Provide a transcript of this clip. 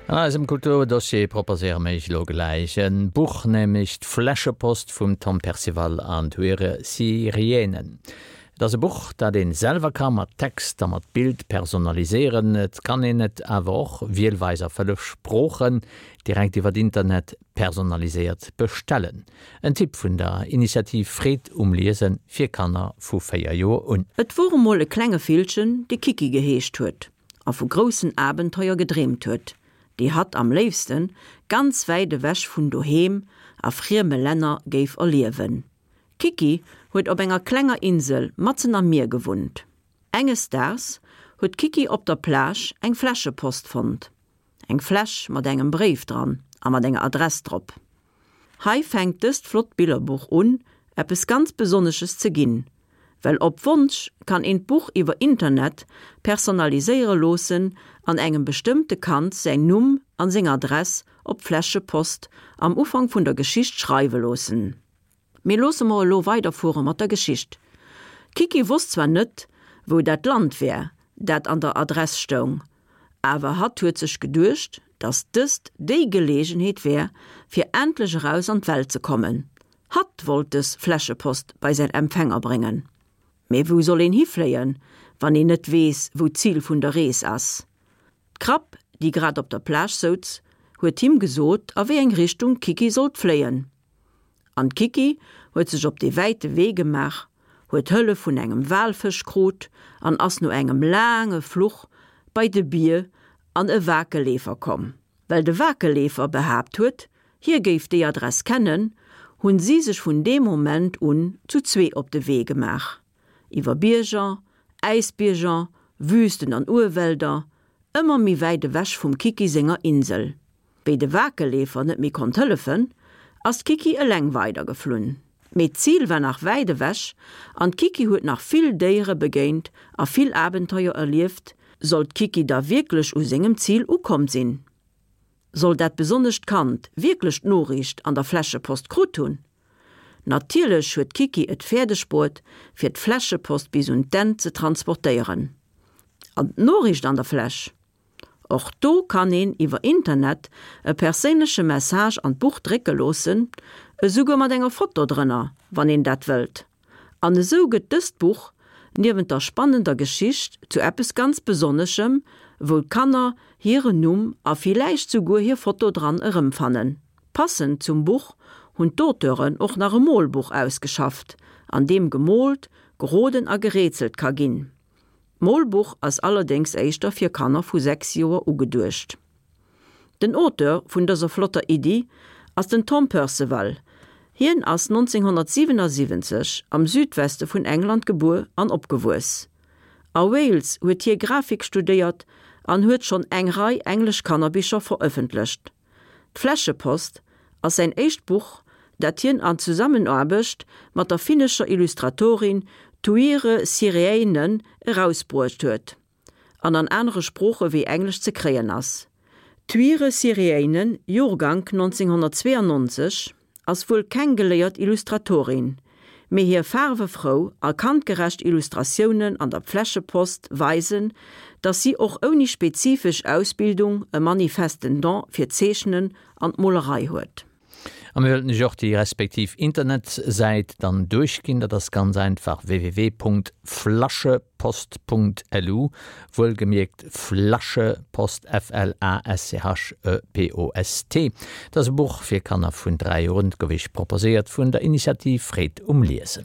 An eisem Kulturdossier proposéiere mir iech elo gläich e Buch, nämlech D'Fläschepost vum Tom Percival an Tuire Sirienen. Et ass e Buch, dat een selwer ka mat Text a mat Bild personaliséieren. Et kann een et awer och, wielweis a 5 Sproochen, direkt iwwert Internet personaliséiert bestellen. En Tipp vun der Initiativ Freed um Liesen fir Kanner vu 4 Joer un. Et wor emol e klenge Villchen, dee Kiki geheescht huet a vu groussen Abenteuer gedreemt huet, déi hatt am léifste ganz wäit ewech vun doheem a frieme Länner géif erliewen. D'Kiki huet op enger klenger Insel matzen am Mier gewunnt. Enges Daags huet d'Kiki op der Plage eng Fläschepost fonnt. Eng Fläsch mat engem Bréif dran a mat enger Adress drop. Hei fänkt dëst flott Billerbuch un, eppes ganz Besonnesches ze ginn, well op Wonsch kann een d'Buch iwwer Internet personaliséiere loossen an engem bestëmmte Kand säin Numm an seng Adress op d'Fläschepost am Ufank vun der Geschicht schreiwe loossen. Mee loosse mer elo weiderfuere mat der Geschicht. D'Kiki wosst zwar net, wou dat Land wär, dat an der Adress stoung, awer hatt huet sech geduecht, dass dëst déi Geleegenheet wär, fir endlech eraus an d'Welt ze kommen. Hatt wollt dës Fläschepost bei säin Empfänger bréngen. Mee wou soll een hifléien, wann een net weess, wou d'Zil vun der Rees ass? D'Krab, déi grad op der Plage souz, huet him gesot, a wéi eng Richtung d'Kiki sollt fléien. An d'Kiki huet sech op dee wäite Wee gemaach, huet Hëllef vun engem Walfësch krut an ass no engem laange Fluch bei de Bier an e Wakelleefer komm. Well de Wakelleefer behaapt huet, hie géif déi Adress kennen, hunn si sech vun deem Moment un zu zwee op de Wee gemaach. Iwwer Bierger, Äisbierger, Wüsten an Urwälder, ëmmer méi wäit ewech vum Kiki senger Insel. Wéi de Wakelleefer net méi konnt hëllefen, ass d'Kiki eleng weidergeflunn. Mee d'Zil war nach wäit ewech an d'Kiki huet nach vill Déiere begéint a vill Abenteuer erlieft. Sollt d'Kiki da wierklech u sengem Zil ukomm sinn? Soll dat besonnescht Kand wierklech d'Noriicht an der Fläschepost krut hunn? Natierlech huet d'Kiki et fäerdeg bruet, fir d'Fläschepost bis un d'Enn ze transportéieren. An d'Noriicht an der Fläsch? Och do kann een iwwer Internet e perséinleche Message an d'Buch drécke loossen, esouguer mat enger Foto drënner, wann een dat wëllt. An esou gëtt dëst Buch, niewent der spannender Geschicht, zu eppes ganz Besonneschem, wou d'Kanner hiren Numm a villäicht souguer hir Foto dran erëmfannen. Passend zum Buch hunn d'Auteuren och nach e Molbuch ausgeschafft, an deem gemoolt, geroden a gerätselt ka ginn. D'Molbuch ass allerdéngs éischter fir Kanner vu 6 Joer ugeduecht. Den Auteur vun dëser flotter Iddi ass den Tom Perceval. Hien ass 1977 am Südweste vun England gebuer an opgewuess. A Wales huet hie Grafik studéiert an huet schonn eng Rei englesch Kannerbicher verëffentlecht. D'Fläschepost ass säin éischt Buch, dat hien an Zusammenaarbecht mat der finnescher Illustratorin Tuire Sireinen erausbruecht huet an an anere Sprooche wéi Englesch ze kréien ass. D'Tuire Sireinen, Joergank 1992, ass wuel keng geléiert Illustratorin, mee hir faarwefrou a kandgerecht Illustratiounen an der Pfläschepost weisen, dass si och ouni spezifesch Ausbildung e manifesten Don fir d'Zeechnen an d'Molerei huet. A mir wëllten iech och déi respektiv Internetsäit dann duerchginn. Dat ass ganz einfach www.flaschepost.lu, wuelgemierkt Flaschepost, F-L-A-S-C-H-E-P-O-S-T. Dat ass e Buch fir Kanner vun 3 Joer un, et gouf iech proposéiert vun der Initiativ Freed um Liesen.